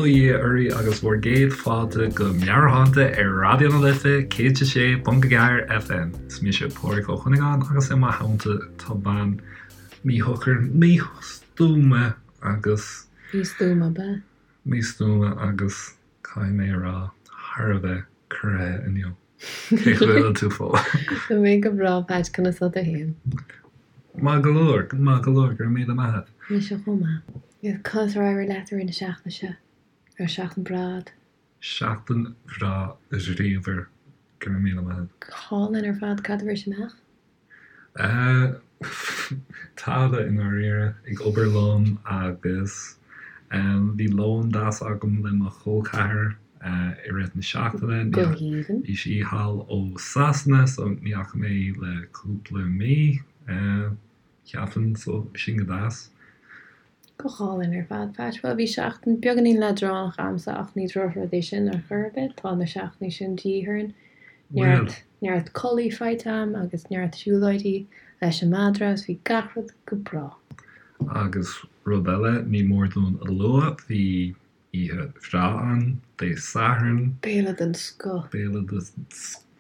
Bail ó Dhia oraibh agus bhur gcéad fáilte go Meabhairshláinte ar Raidió na Life 106.4 FM. Is mise Pádraig Ó Cuinneagáin agus i mo theannta tá bean míshocair, místuama agus. Místuama, ab ea? Místuama agus caithfidh mé a rá, thar a bheith corraithe inniu. Cén chaoi a bhfuil tú, Fódhla? Tá mé go breá, Patch, conas tá tú féin? Maith go leor, maith go leor, go raibh míle maith agat. Mise chomh maith. Conas ar éirigh leat i rith na seachtaine seo? Raibh seachtain breá agat? Seachtain bhreá bhríomhar, go raibh míle maith agat. Go hálainn ar fad, cad a bhris amach? Tada i ndáiríre, ag obair liom agus bhí lón deas agam le mo chol ceathar i rith na seachtaine. Go haoibhinn. Bhí sí thall ó Sasana so ní fhaca mé í le cúpla mí. Cheapfainn, so sin go deas. Go hálainn ar fad, Patch. Bhuel, bhí seachtain beagáinín leadránach a'msa ach ní drochrud é sin ar chor ar bith. Tá na seachtainí sin de dhíth orainn. Neart, neart codlaí faighte a'm agus neart siúlóidí leis an madra agus bhí gach rud go breá. Agus rud eile, ní mór dúinn a lua, bhí oíche bhreá ann Dé Sathairn. Béile den scoth. Béile den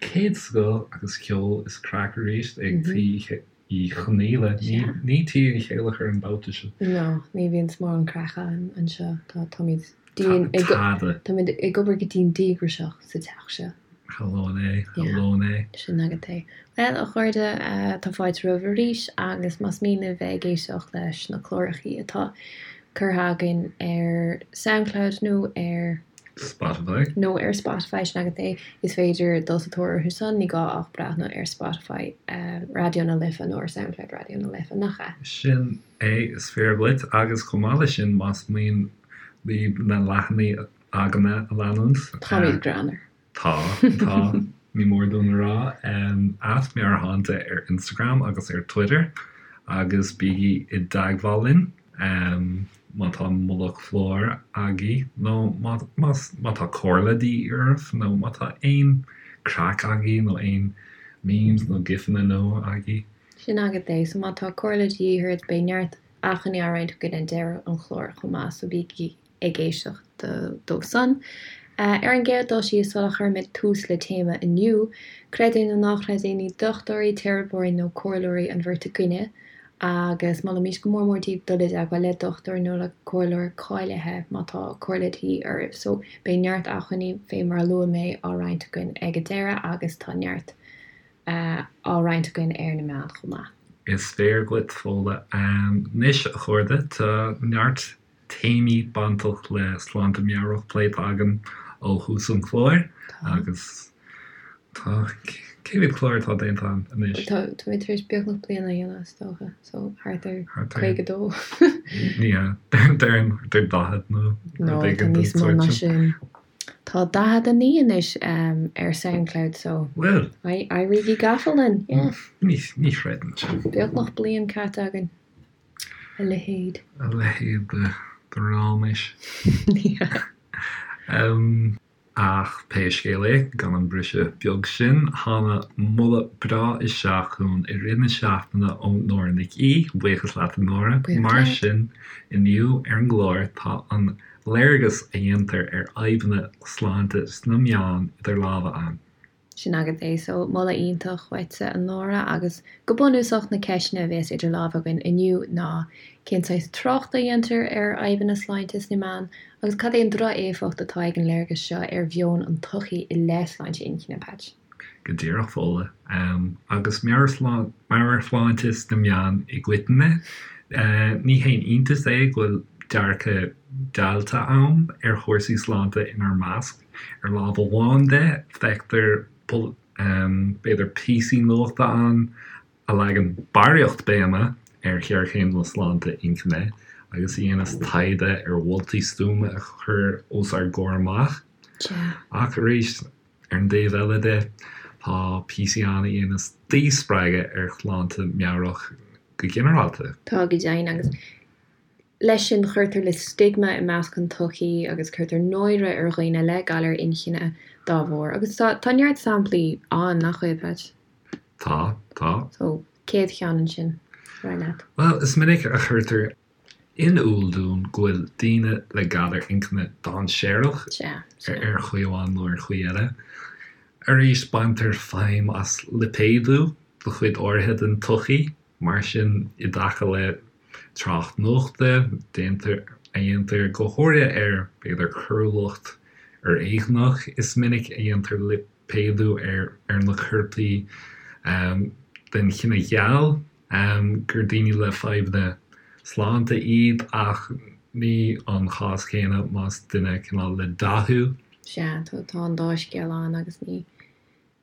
chéad scoth agus ceol is craic arís ag Tí Uí Chonghaile. Ní Tí Uí Chéilleachair an babhta seo. No, ní bhíonn mórán craic ann anseo. Tá, táimid dian ag, Tada. táimid ag obair go dian díograiseach sa teach seo. Shamhlóinn é, shamhlóinn é. Sin agat é. Bhuel, a chairde, tá fáilte romhaibh arís agus más mian libh bheith ag éisteacht leis na clárachaí atá curtha againn ar Soundcloud nó ar. Spotify. Nó ar Spotify, sin agat é. Is féidir dul sa tóir orthu san, ní gá ach breathnú ar Spotify Raidió na Life nó ar Soundcloud Raidió na Life, nach ea? Sin é, is fíor dhuit. Agus chomh maith leis sin, más mian libh na leathanaigh againne a leanúint. Táimid greannmhar. Tá, tá, ní mór dúinn a rá. At Meabhairshláinte ar Instagram agus ar Twitter agus bígí i dteagmháil linn má tá moladh cláir agaibh nó má, má tá comhairle de dhíth oraibh nó má tá aon craic agaibh nó aon memes nó gifanna nua agaibh. Sin agat é, so má tá comhairle de dhíth ort beidh neart acmhainní á roinnt againn ag deireadh an chláir chomh maith, so bígí ag éisteacht dó san. Ar an gcéad dul síos, sula chuirimid tús le téama inniu, creid é nó ná creid é, ní dochtúirí, teiripeoirí nó comhairleoirí an bheirt againne, agus molaimid go mór mór daoibh dul i dteagmháil le dochtúir nó le comhairleoir cáilithe má tá comhairle de dhíth oraibh. So, beidh neart acmhainní, fé mar a luaigh mé, á roinnt againn ag an deireadh agus tá neart á roinnt againn ar na meáin chomh maith. Is fíor dhuit, Fódhla. Anois, a chairde, tá neart téamaí bainteach le sláinte meabhrach pléite againn ó thús an chláir agus tá, cé mhéad clár atá déanta againn anois? Tá, táimid tar éis beagnach bliain a dhéanamh is dócha, so thart ar 52. Ní hea, déarfainn thart ar 40 nó rud éigin den sórt sin. No, tá níos mó ná sin. Tá 49 anois ar Soundcloud so. Bhuel. Éirígí gafa linn, yeah. Ní chreidim sin. Beagnach bliain caite againn. A leithéid. A leithéid de ráiméis. Ach pé scéal é, gan an briseadh beag sin, tháinig moladh breá isteach chugainn i rith na seachtaine ó Nóra Nic Aoidh, buíochas leat a Nóra. Mar sin, inniu ar an gclár tá an léargas a dhéantar ar fhadhbanna sláinte sna meáin idir lámha againn. Sin agat é. So, moladh iontach uaitse, a Nóra, agus go bunúsach na ceisteanna a bhéas idir lámha againn inniu ná cén saghas tráchta a dhéantar ar fhadhbanna sláinte sna meáin agus cad é an droch-éifeacht atá ag an léargas seo ar mheon an tsochaí i leith sláinte inchinne, Patch? Go díreach, Fódhla. Agus meabhairshláinte sna meáin i gcoitinne, ní haon iontas é go bhfuil dearcadh deighilte ann ar chúrsaí sláinte inár measc. Ar lámh amháin de, feictear, b'fhéidir, píosaí nuachta ann a leagann barraíocht béime ar ghéarchéim na sláinte inchinne agus a dhéanas taighde ar mholtaí stuama a chur os ár gcomhair amach. Ach arís, ar an dtaobh eile de, tá píosaí ann a dhéanas díspreagadh ar shláinte meabhrach go ginearálta. Tá go deimhin, agus Leis sin, cuirtear le stigma i measc an tsochaí agus cuirtear náire ar dhaoine le galar inchinne dá bharr. Agus tá, tá neart samplaí ann, nach bhfuil, Patch? Tá, tá. So, céad cheann ansin, ar mhaith leat? Bhuel, is minic a chuirtear in iúl dúinn go bhfuil daoine le galar inchinne dainséarach ar chaoi amháin nó ar chaoi eile. Arís, baintear feidhm as lipéadú do chuid áirithe den tsochaí, mar sin i dtaca le trácht nuachta, déantar, a dhéantar go háirithe ar, b'fhéidir, coiriúlacht fhoréigneach, is minic a dhéantar lipéadú ar na coirpigh den chine gheal. gur daoine le fadhbanna sláinte iad ach ní an chás céanna más duine cineál le dath thú. Sea, tá an dá scéal ann agus ní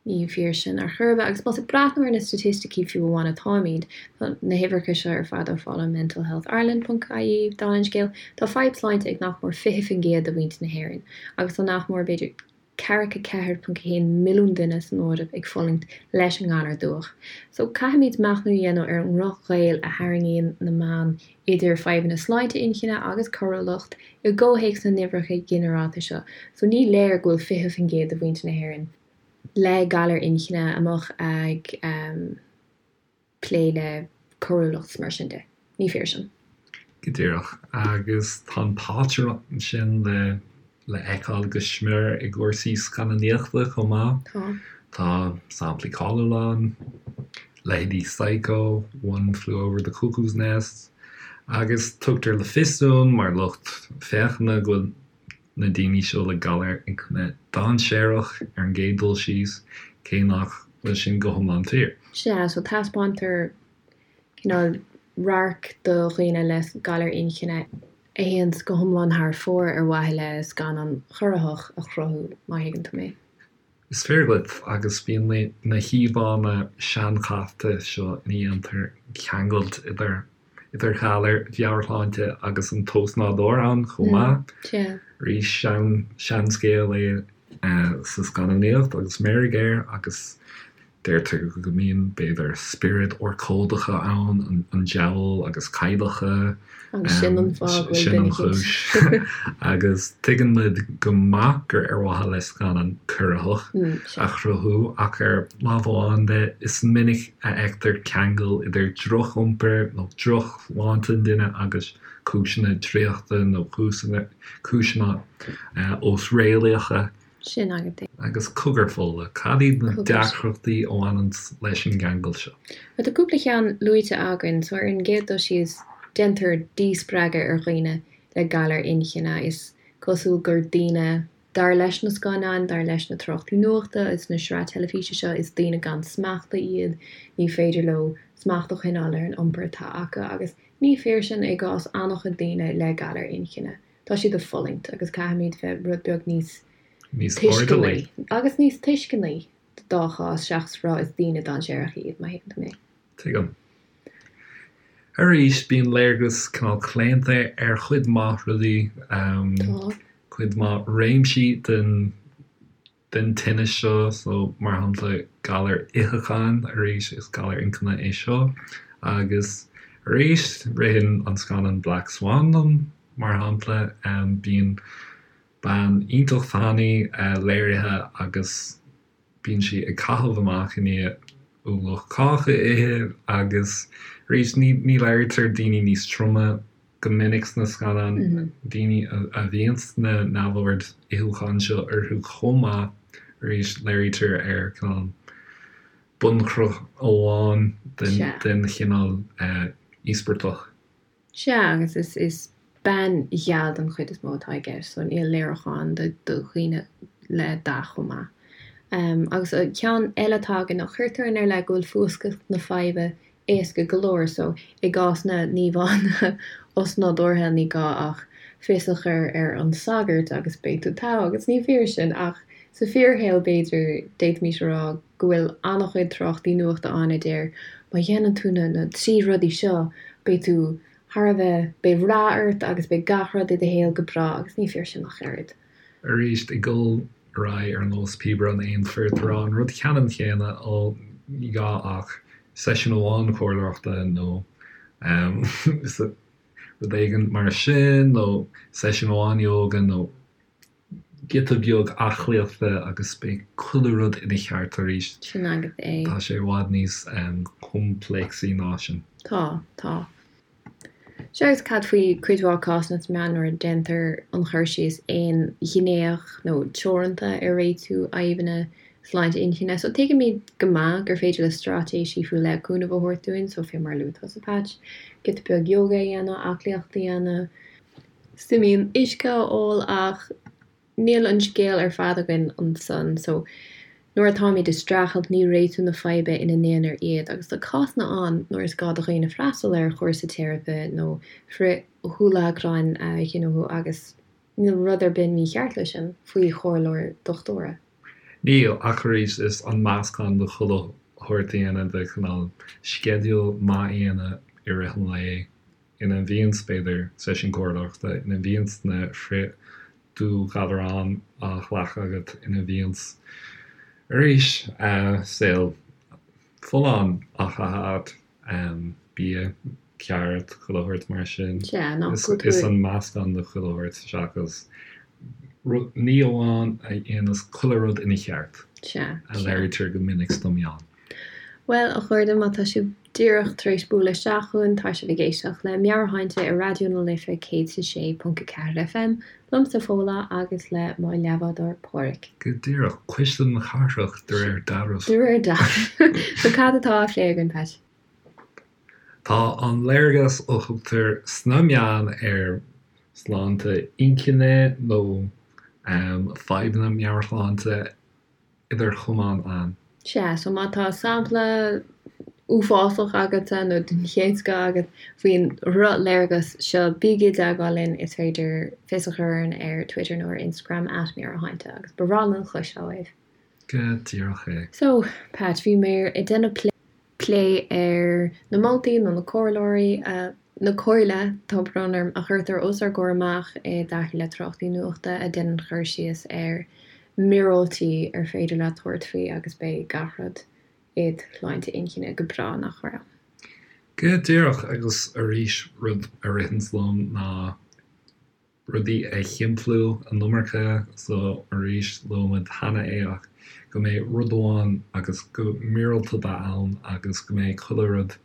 ní fíor sin ar chor ar bith. Agus más ag breathnú ar na staitisticí fiú amháin atáimid, tá na huimhreacha seo ar fad á fáil ó mentalhealthireland ponc ie, dála an scéil, tá fadhb sláinte ag nach mór 20% de mhuintir na hÉireann agus tá nach mór, b'fhéidir, ceathracha 4.1 milliún duine san Eoraip ag fulaingt leis an ngalar dubhach. So, caithfimid machnamh a dhéanamh ar an ndroch-ghaol a tharraingíonn na meáin idir fadhbanna sláinte inchinne agus coiriúlacht i gcomhthéacs na n-uimhreacha ginearálta seo. So, ní léir go bhfuil 20% de mhuintir na hÉireann le galar inchinne amuigh ag. plé le coiriúlacht 's mar sin de. Ní fíor sin. Go díreach. Agus tá an pátrún sin le le fheiceáil go smior i gcúrsaí scannánaíochta chomh maith. Tá. Tá samplaí cáiliúla ann, leithéidí Psycho, One Flew Over the Cuckoo's Nest, agus tugtar le fios dúinn mar lucht féachana go bhfuil na daoine seo le galar inchinne dainséarach ar an gcéad dul síos, cé nach bhfuil sin go hiomlán fíor. Sea, so taispeántar cineál radharc do dhaoine le galar inchinne a théanns go hiomlán thar fóir ar mhaithe le scannán corraitheach a chruthú, má thuigeann tú mé. Is fíor dhuit, agus bíonn na híomhánna seanchaite seo ina dhéantar ceangailt idir idir ghalair mheabhairshláinte agus an t-ósnádúr ann chomh maith. Arís, seanscéal é sa scannánaíocht agus meirg air agus deirtear go mbíonn, b'fhéidir, spioraid urchóideacha ann, an diabhal agus cailleacha. Agus sin an fáth go bhfuil Sin an chúis. Agus tuigeann muid go maith gur ar mhaithe le scannán corraitheach a chruthú ach ar lámh amháin de, is minic a fheictear ceangal idir droch-iompar nó drochshláinte an duine agus cúiseanna draíochta nó cúiseanna osréalaíocha. Sin agat é. Agus cogar, Fódhla, cad iad na deacrachtaí a bhaineann leis an gceangal seo? Bhuel, tá cúpla ceann luaite againn. So, ar an gcéad dul síos, déantar díspreagadh ar dhaoine le galar inchinne. Is cosúil gur daoine, dar leis na scannáin, dar leis na tráchtaí nuachta is na sraith teilifíse seo, is daoine gan smacht iad, ní féidir leo smacht a choinneáil ar an iompar atá acu. Agus ní fíor sin i gcás an-chuid daoine le galar inchinne. Tá siad ag fulaingt agus caithfimid bheith rud beag níos Níos tuisceanaí agus níos tuisceanaí dá chás seachas rá is daoine dainséaracha iad, má thuigeann tú mé. Tuigim. Arís, bíonn léargas cineál claonta ar chuid mhaith rudaí, Tá. cuid mhaith réimsí den den tinneas seo, so mar shampla galar itheacháin, arís is galar inchinne é seo, agus arís ritheann an scannán Black Swan liom, mar shampla, bíonn bean iontach tanaí léirithe agus bíonn sí ag caitheamh amach i ndiaidh ualach cáca a ithe agus arís ní ní léirítear daoine níos troime go minic sna scannáin, daoine a bhíonns na neamhoird itheacháin seo orthu chomh maith, arís léirítear ar cineál bunchruth amháin den chineál íospartach. Sea, agus is bean gheal den chuid is mó atá i gceist, so níl léiriúchán do dhaoine le dath chomh maith. Agus ceann eile atá againn ná cuirtear inár leith go bhfuil fuascailt na faidhbe éasca go leor so i gcás na n-íomhánna osnádúrtha ní gá ach fios a chur ar an sagart agus beidh tú togha agus ní fíor sin ach sa fíorshaol b'fhéidir d'fhéadfaimis a rá go bhfuil an-chuid tráchtaí nuachta ann a deir má dhéanann tú na na 3 rudaí seo beidh tú thar a bheith beidh rath ort agus beidh gach rud i do shaol go breá agus ní fíor sin ach oiread. Arís ag dul ar aghaidh ar nós píobaire an aon fir ag rá an rud ceannann céanna, ó ní gá ach seisiún amháin comhairleoireachta nó rud éigin mar sin nó seisiún amháin ióga nó giota beag aclaíochta agus beidh chuile rud ina cheart arís. Sin agat é. Tá sé i bhfad níos coimpléacsaí ná sin. Tá, tá. Sea, agus cad faoi cuid mhaith cásanna sna meáin nuair a déantar an chur síos aonghnéach nó teoranta ar réitiú fhadhbanna sláinte inchinne? So tuigimid go maith gur féidir le straitéisí faoi leith cúnamh a thabhairt dúinn, so fé mar a luaigh tusa Patch, giota beag yoga a dhéanamh, aclaíocht a dhéanamh, suimín uisce a ól ach Níl an scéal ar fad againn ansan so nuair atáimid ag streachailt ní réitiú na faidhbe ina n-aonar iad agus tá cásanna ann nuair is gá do dhaoine freastal ar chúrsa teiripe nó frithdhúlagrain a ghnóthú agus níl rud ar bith mícheart leis sin faoi chomhairle dochtúra. Níl, ach arís is an meascán de chuile shórt a dhéanamh de chineál sceideal maith a dhéanamh i rith an lae ina mbíonns, b'fhéidir, seisiún comhairleoireachta, ina mbíonns na frith-dúghalaráin á ghlacadh agat, ina mbíonns, arís, saol folláin á chaitheamh agat, bia ceart, chuile shórt mar sin. Sea, nach bhfuil tú. Is an meascán de chuile shórt seachas ní amháin a dhéanas chuile rud ina cheart, Sea, a léirítear go minic sna meáin. Bhuel, a chairde, má tá sibh díreach tar éis bualadh isteach chugainn, tá sibh ag éisteacht le Meabhairshláinte ar Raidió na Life 106.4 FM, liomsa Fódhla agus le mo leathbhádóir Páraic. Go díreach, cuisle na cathrach de réir dealraimh. De réir dealraimh. So cad atá á phlé againn, Pat? Tá an léargas a thugtar sna meáin ar shláinte inchinne nó fadhbanna meabhairshláinte idir chamáin ann. Sea, so má tá sampla uafásach agatsa nó den chéad scoth agat faoin dhrochléargas seo, bígí i dteagmháil linn, is féidir fios a chur orainn ar Twitter nó ar Instagram at Meabhairshláinte agus ba bhreá linn cloisteáil uaibh. Go díreach é. So, Pat, bhí mé ag déanamh plé. plé ar na moltaí nó na comhairleoirí, na comhairle, tá brón orm, a chuirtear os ár gcomhair amach i dtaca le tráchtaí nuachta a dhéanann cur síos ar mhíorúiltí ar féidir leat tabhairt faoi agus beidh gach rud id shláinte inchinne go breá, nach raibh? Go díreach, agus arís rud a ritheanns liom ná rudaí a shimpliú an iomarca so arís luaigh muid cheana é ach go mbeidh rud amháin agus go míorúilt a bheith ann agus go mbeidh chuile rud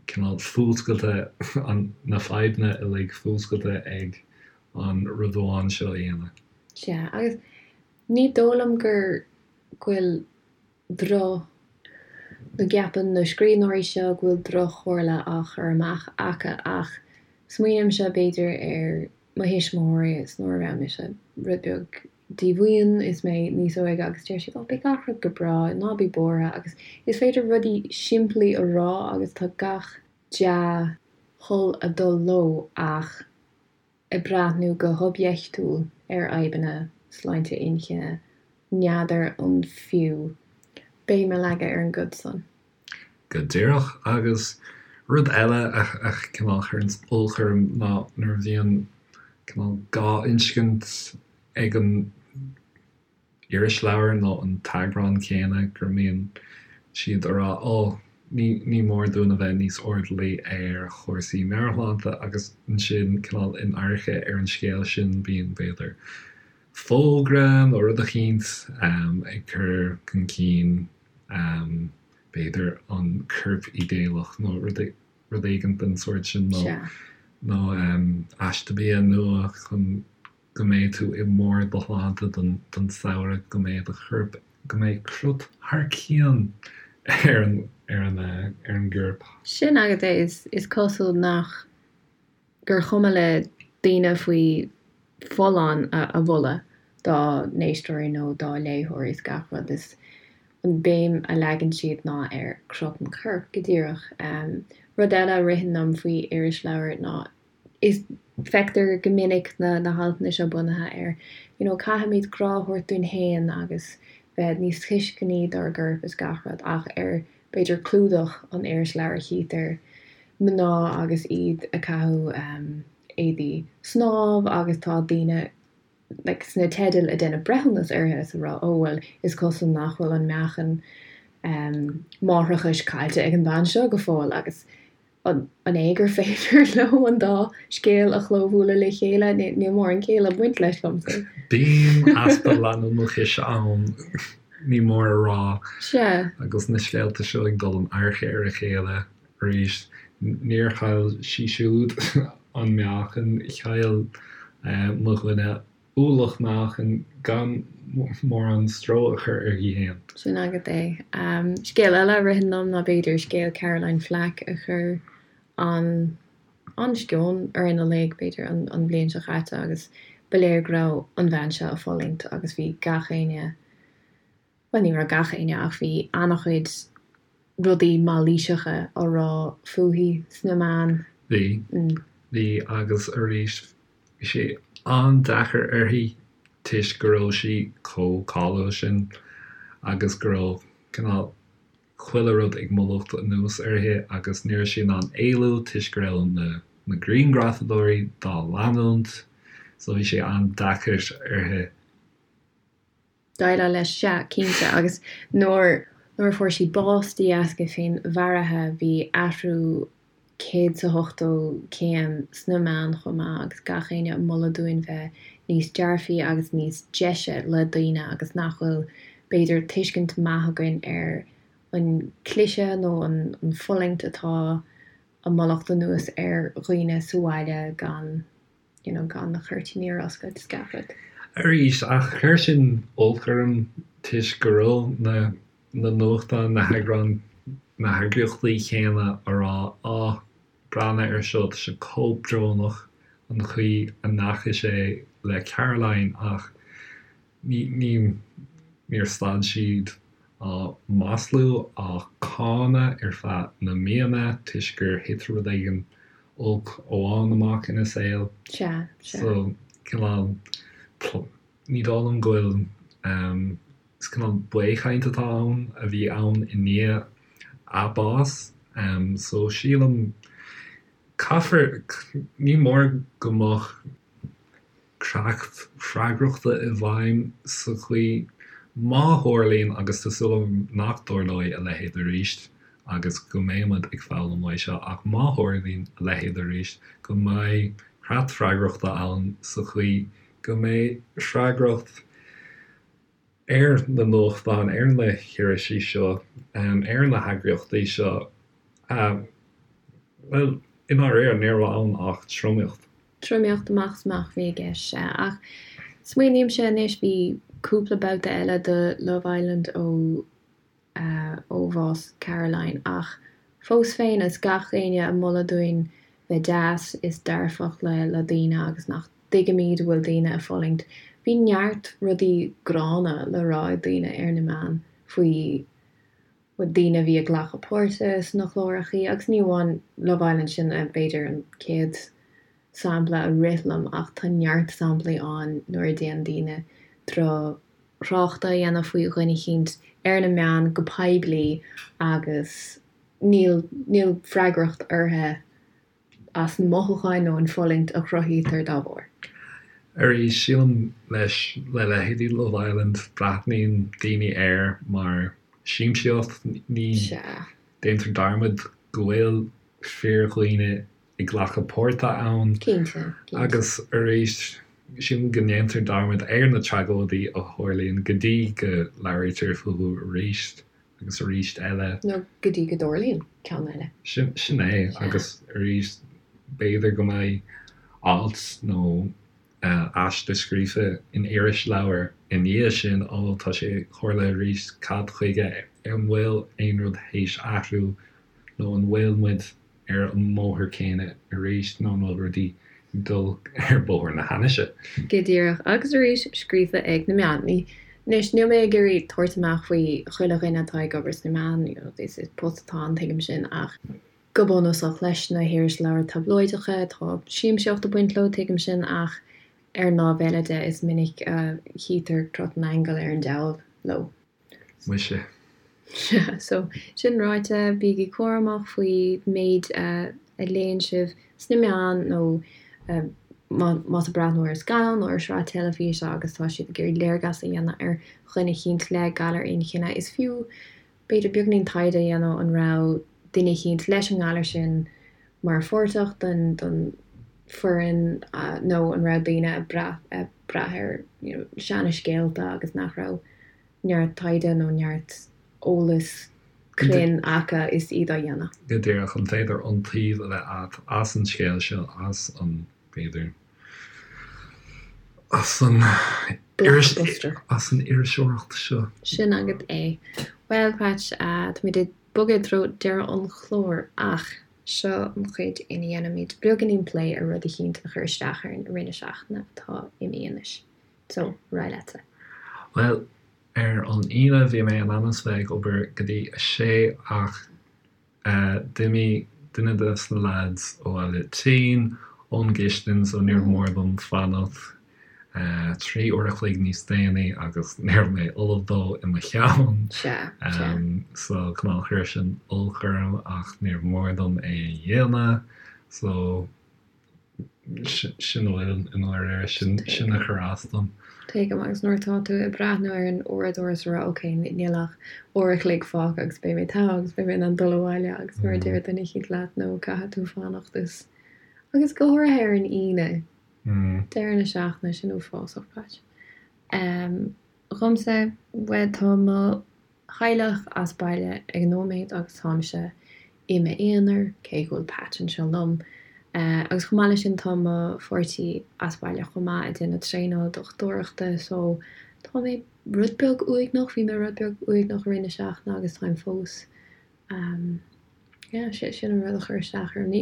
cineál fuascailte, na fadhbanna uilig fuascailte ag an rud amháin seo a dhéanamh. Sea, agus ní dóigh liom gur go bhfuil droch, nó gceapann na scríbhneoirí seo go bhfuil droch-chomhairle á chur amach acu ach smaoinímse b'fhéidir ar mo thuismitheoirí is nuair a raibh mise rud beag díomhaoin is mé níos óige agus deir siad oh beidh gach rud go breá, ná bí buartha agus is féidir rudaí simplí a rá agus tá gach dea-thoil ag dul leo ach ag breathnú go hoibiachtúil ar fhadhbanna sláinte inchinne, n'fheadar an fiú béim a leagadh ar an gcuid san. Go díreach. Agus rud eile a cineál chuireanns olc orm ná nuair a bhíonn cineál dhá inscint ag an irisleabhar nó an t-eagrán céanna go mbíonn siad a rá 'Ó, ní ní mór dúinn a bheith níos airdeallaí ar chúrsaí meabhairshláinte' agus ansin cineál in adharca ar an scéal sin bíonn, b'fhéidir, fógra nó rud eicínt ag cur chun cinn b'fhéidir an corp idéalach nó rud rud éigin den sórt sin nó nó aiste bia nua chun go mbeidh tú i mbarr do shláinte don samhradh, go mbeidh do chorp, go mbeidh crot thar cionn ar an, ar an, ar an gcorp. Sin agat é, is, is cosúil nach, gur chuma le daoine faoi folláin a mholadh dá n-éisteoirí nó dá léitheoirí is gach rud, is an béim a leagann siad ná ar crot an choirp, go díreach. Rud eile a ritheann liom faoi irisleabhair ná is feictear go minic na na haltanna seo bunaithe ar you know caithfimid grá a thabhairt dúinn féin agus bheith níos tuisceanaí dár gcorp is gach rud ach ar b'fhéidir clúdach an irisleabhair chítear mná agus iad ag caitheamh éadaí snámh agus tá daoine like sna teidil ag déanamh breithiúnas orthu is ag rá oh bhuel is cosúil nach bhfuil an meáchan máithreachais caillte ag an bhean seo go fóill agus An é gur féidir leo an dá scéal a chlóbhualadh le chéile? Níl mórán céille ag baint leis liomsa. Bíonn easpa leanúnachais ann, ní mór a rá. Sea. Agus na scéalta seo ag dul in adharca ar a chéile arís. Níor chaill sí siúd an meáchan, chaill mo dhuine ualach meáchain gan mórán stró a chur uirthi féin. Sin agat é. Scéal eile a ritheann liom ná b'fhéidir scéal Caroline Flack a chuir an an-sceon orainn uilig, b'fhéidir, an bhliain seo caite agus ba léir go raibh an bhean seo ag fulaingt agus bhí gach éinne, bhuel ní raibh gach éinne ach bhí an-chuid rudaí mailíseacha á rá fúithi sna meáin. Bhí. Bhí agus arís bhí sé an-deacair uirthi toisc go raibh sí chomh cáiliúil sin agus go raibh cineál chuile rud ag mallacht anuas uirthi agus ní raibh sí in ann éalú toisc go raibh na na grianghrafadóirí dá leanúint so bhí sé an-deacair uirthi. Déileáil leis, sea, cinnte, agus nuair nuair a fuair sí bás de dheasca féinmharaithe bhí athrú 180 céim sna meáin chomh maith agus gach éinne ag moladh dúinn bheith níos dearfaí agus níos deise le daoine agus nach bhfuil b'fhéidir tuiscint maith againn ar an cliseadh nó an fulaingt atá ag mallacht anuas ar dhaoine sa bhaile gan you know gan na cuirtíní ar oscailt is gach rud. Arís, ach chuir sin olc orm toisc go raibh na na nuachtáin, na heagráin, na heagraíochtaí chéanna a rá á, breathnaigh ar seo, tá sé chomh brónach an chaoi a ndeachaigh sé le Caroline ach ní, ní, níor stad siad á maslú, á cáineadh ar feadh na míonna toisc gur thit rud éigin olc amháin amach ina saol. Sea, sea. So, cineál, ní dóigh liom go bhfuil, is cineál baothchaint atá ann, a bhí ann i ndiaidh a bás. So, sílim, caithfear, ní mór go mbeadh creat freagrachta i bhfeidhm sa chaoi, má tharlaíonn, agus tá súil agam nach dtarlóidh a leithéid arís agus go mbeidh muid ag foghlaim uaidh seo, ach má tharlaíonn a leithéid arís, go mbeidh creat freagrachta ann sa chaoi go mbeidh freagracht ar na nuachtáin, ar na hirisí seo, ar na heagraíochtaí seo, bhuel, i ndáiríre, ní raibh ann ach tromaíocht. Tromaíocht amach is amach a bhí i gceist, sea. Ach smaoinímse anois, bhí cúpla babhta eile de Love Island ó ó bhás Caroline ach fós féin is gach éinne ag moladh dúinn bheith deas is dearfach le le daoine agus nach dtuigimid go bhfuil daoine ag fulaingt. Bhí neart rudaí gránna le rá ag daoine ar na meáin faoi daoine a bhí ag glacadh páirte sna clárachaí agus ní amháin Love Island sin b'fhéidir an chéad sampla a rith liom ach tá neart samplaí ann nuair a déanann daoine drochthrácht a dhéanamh faoi dhuine eicínt ar na meáin go poiblí agus níl níl freagracht orthu as na mothúcháin nó an fulaingt a chruthaítear dá bharr. Arís, sílim leis, le leithéidí Love Island, breathnaíonn daoine air mar siamsaíocht, ní déantar dearmad go bhfuil fíordhaoine ag glacadh páirte ann. Cinnte, cinnte. Agus arís, sílim go ndéantar dearmad ar na tragóidí a tharlaíonn go dtí go labhraítear fúthu arís. agus arís eile. Nó go dtí go dtarlaíonn ceann eile. Sin é, agus arís, b'fhéidir go mbeidh alt nó aiste scríofa in irisleabhar i ndiaidh sin, ó, tá sé tharla arís, cad chuige, an bhfuil aon rud théis athrú nó an bhfuil muid ar an mbóthar céanna arís nó an bhfuil rudaí ag dul ar bhóthar na hainnise? Go díreach. Agus arís, scríofa ag na meáin. Anois, níl mé ag iarraidh tabhairt amach faoi chuile dhuine atá ag obair sna meáin, you know, is post atá ann, tuigim sin, ach go bunúsach, leis na hirisleabhair tablóideacha, tá siamsaíocht ag baint leo, tuigim sin, ach ar an lámh eile de, is minic a chítear crot an aingil ar an diabhal leo. Muise. Sea, so, sin ráite, bígí cúramach faoi méid a léann sibh sna meáin nó más ag breathnú ar scannán nó ar shraith teilifíse agus tá siad ag iarraidh léargas a dhéanamh ar dhuine eicínt le galar inchinne, is fiú b'fhéidir beagainín taighde a dhéanamh an raibh duine eicínt leis an ngalar sin mar pháirteach den den foireann nó an raibh daoine ag brath ag brath ar you know seana scéalta agus nach raibh neart taighde nó neart eolas. cruinn acu is iad á dhéanamh. Go díreach, an féidir iontaoibh a bheith agat as an scéal seo, as an, b'fhéidir, as an Blockbuster. as an iriseoireacht seo? Sin agat é. Bhuel, Patch, táimid ag bogadh i dtreo deireadh an chláir ach seo an chuid ina dhéanaimid beagáinín plé ar rud eicínt a chuir isteach orainn i rith na seachtaine atá imithe anois. So, ar aghaidh leatsa. Bhuel, ar an Aoine bhí mé in ainm is bheith ag obair go dtí a sé ach d'imigh duine de na lads abhaile tinn ón gcistin so níorbh mór dom fanacht 3 uair a chloig níos déanaí agus ní raibh mé ullamh dó i mo cheann. Sea, sea. So cineál chuir sin olc orm ach níorbh mór dom é a dhéanamh so Sin a bhfuil i ndáiríre, sin a chuir as dom. Tuigim, agus nuair atá tú ag breathnú ar an uaireadóir is ag rá ok, níl ach uair a chloig fágtha agus beidh mé togha agus beidh mé in ann dul abhaile agus nuair a deir duine eicínt leat no caithfidh tú fanacht is agus go háirithe ar an Aoine, deireadh na seachtaine, sin uafásach, Patch. Dhomsa, bhuel tá mo theaghlach as baile ag an nóiméad agus táimse i m'aonar, cé go bhfuil Patch anseo liom. Agus chomh maith leis sin tá mo pháirtí as baile chomh maith ag déanamh traenáil dochtúireachta so tá mé rud beag uaigneach, bhí mé rud beag uaigneach i rith na seachtaine agus táim fós. Yeah, sin an rud a chuir isteach orm. Ní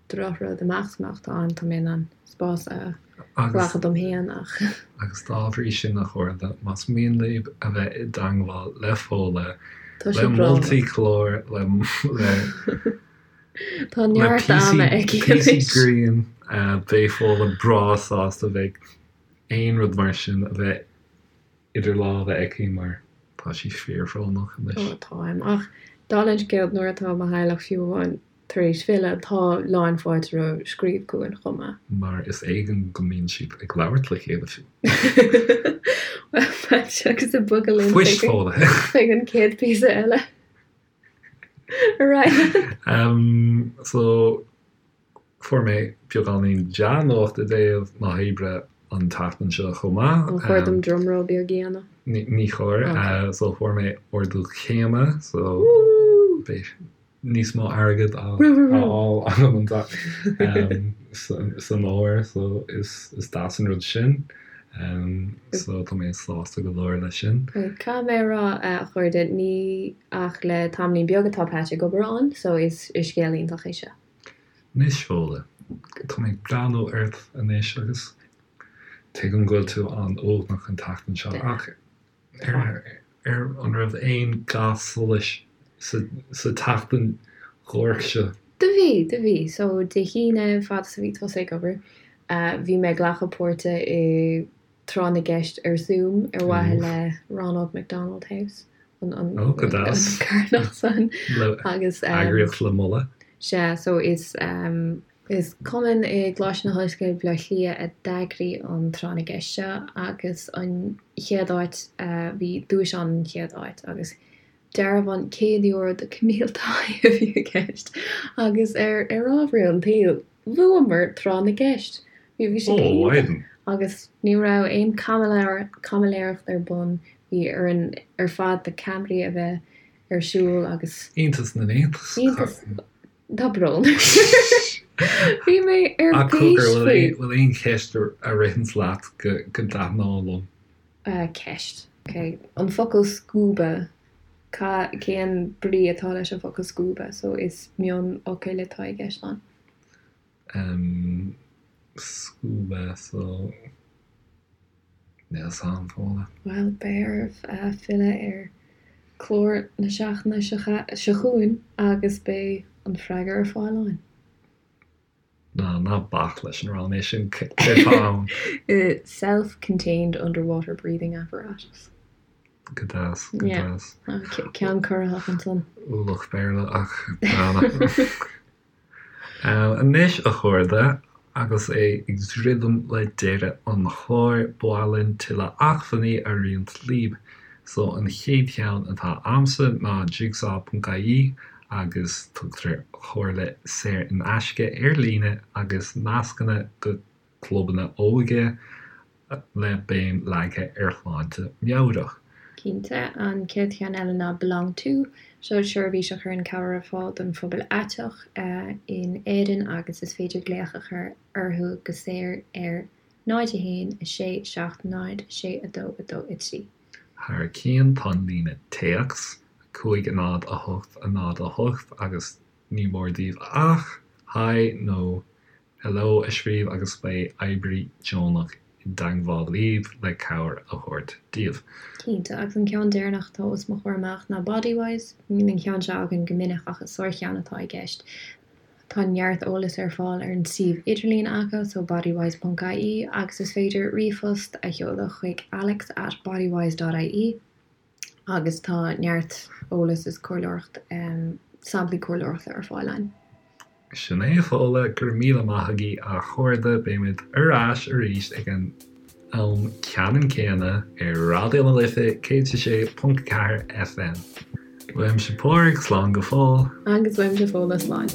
drochrud amach is amach atá ann, tá mé in ann spás a ghlacadh dom féin ach. Agus dá bhrí sin, a chairde, más mian libh a bheith i dteangmháil le Fódhla, Tá sé le moltaí clár, le le Tá neart ama aici píosaí anois. grinn, beidh Fódhla breá sásta bheith aon rud mar sin a bheith idir lámha aici mar tá sí fíorbhrónach anois. Ó, táim. Ach dála an scéil, nuair atá mo theaghlach fiú amháin tar éis filleadh, tá lán fáilte roimh scríobh chugainn chomh maith. Mar is éigean go mbíonn siad ag labhairt le chéile fiú. Bhuel, Patch, agus ag bogadh linn Fuist Fódhla. chuig an chéad phíosa eile. Ar aghaidh leat. So, Fuair mé beagáinín dea-nuacht i dtaobh na hoibre an tseachtain seo chomh maith. An chóir dom drumroll beag a dhéanamh? Ní chóir. So fuair mé ardú céime so beidh níos mó airgid á fháil agam san fhómhar so is deas an rud sin. So tá mé sásta go leor leis sin. Caithfidh mé a rá, a chairde, ní ach le tamaillín beag atá Patch ag obair ann so is scéal iontach é seo. Anois, Fódhla, tá mé ag breathnú ort anois agus tuigim go bhfuil tú an-uaigneach an tseachtain seo ach ar ar an raibh aon ga solais sa sa tseachtain dhuairc seo? Do bhí, do bhí. So, Dé hAoine, fad is a bhí tusa ag obair, bhí mé ag glacadh páirte i Tráth na gCeist ar Zoom ar mhaithe le Ronald McDonald House, an Ó, go deas. carthanacht san. Le Agus. eagraíocht le moladh. Sea, so is is cumann i gColáiste na hOllscoile Baile Átha Cliath a d'eagraigh an Tráth na gCeist seo agus an chéad áit, bhí duais ann an chéad áit agus dearbhán €100 do Camille Tighe a bhí i gceist agus ar ar ámharaí an tsaoil, Bhuamar tráth na gceist. Bhí bhí sé go hiontach agus ní raibh aon caimiléireacht ar bun, bhí orainn ar fad na ceamaraí a bheith ar siúl agus. Iontas na n-iontas. Iontas, tá brón. Bhí mé ar bís faoi. Bhfuil aon cheist a ritheanns leat go dtaitneodh liom? Ceist, ok. An focal scuba, ca, cén brí atá leis an bhfocal scuba? So is mionfhocail atá i gceist ann. Em, scuba, so, níl 'fhios a'm, Fódhla. Bhuel, beidh oraibh filleadh ar chlár na seachtaine seo chugainn agus beidh an freagra ar fáil ann. Ná, ná bac leis an rá mé sin, céard atá ann? Self-contained underwater breathing apparatus. Go deas, go deas. Ceann corraitheach ansan. Ualach Béarla ach gránna. Anois, a chairde, agus é ag druidim le deireadh an chláir, ba mhaith linn tuilleadh acmhainní a roinnt libh. So, an chéad cheann atá a'msa ná jigsaw.ie agus tugtar comhairle saor in aisce ar líne agus nascanna go clubanna óige le béim leagtha ar shláinte meabhrach. Cinnte, an chéad cheann eile ná Belong To, seo seirbhís a chuireann cabhair ar fáil don phobal aiteach in Éirinn agus is féidir glaoch a chur orthu go saor ar 0 1 6 7 0 6 2 2 3. Thar cionn tá an líne téacs, 5 0 8 0 8 agus ní mór daoibh ach Hi nó Hello a scríobh agus beidh oibrí deonach i dteagmháil libh le cabhair a thabhairt daoibh. Cinnte, agus an ceann deireanach atá os mo chomhair amach ná Bodywhys. Níl an ceann seo againn go minic ach is sárcheann atá i gceist. Tá neart eolais ar fáil ar an suíomh idirlín acu, so bodywhys ponc ie, agus is féidir ríomhphost a sheoladh chuig alex at bodywhys dot ie agus tá neart eolas is comhairleoireacht, samplaí comhairleoireachta ar fáil ann. Sin é, a Fódhla, go raibh míle maith agaibh a chairde, beimid ar ais arís ag an am ceannann céanna ar Raidió na Life 106.4 FM. Uaimse Pádraig, slán go fóill. Agus uaimse Fódhla, slán.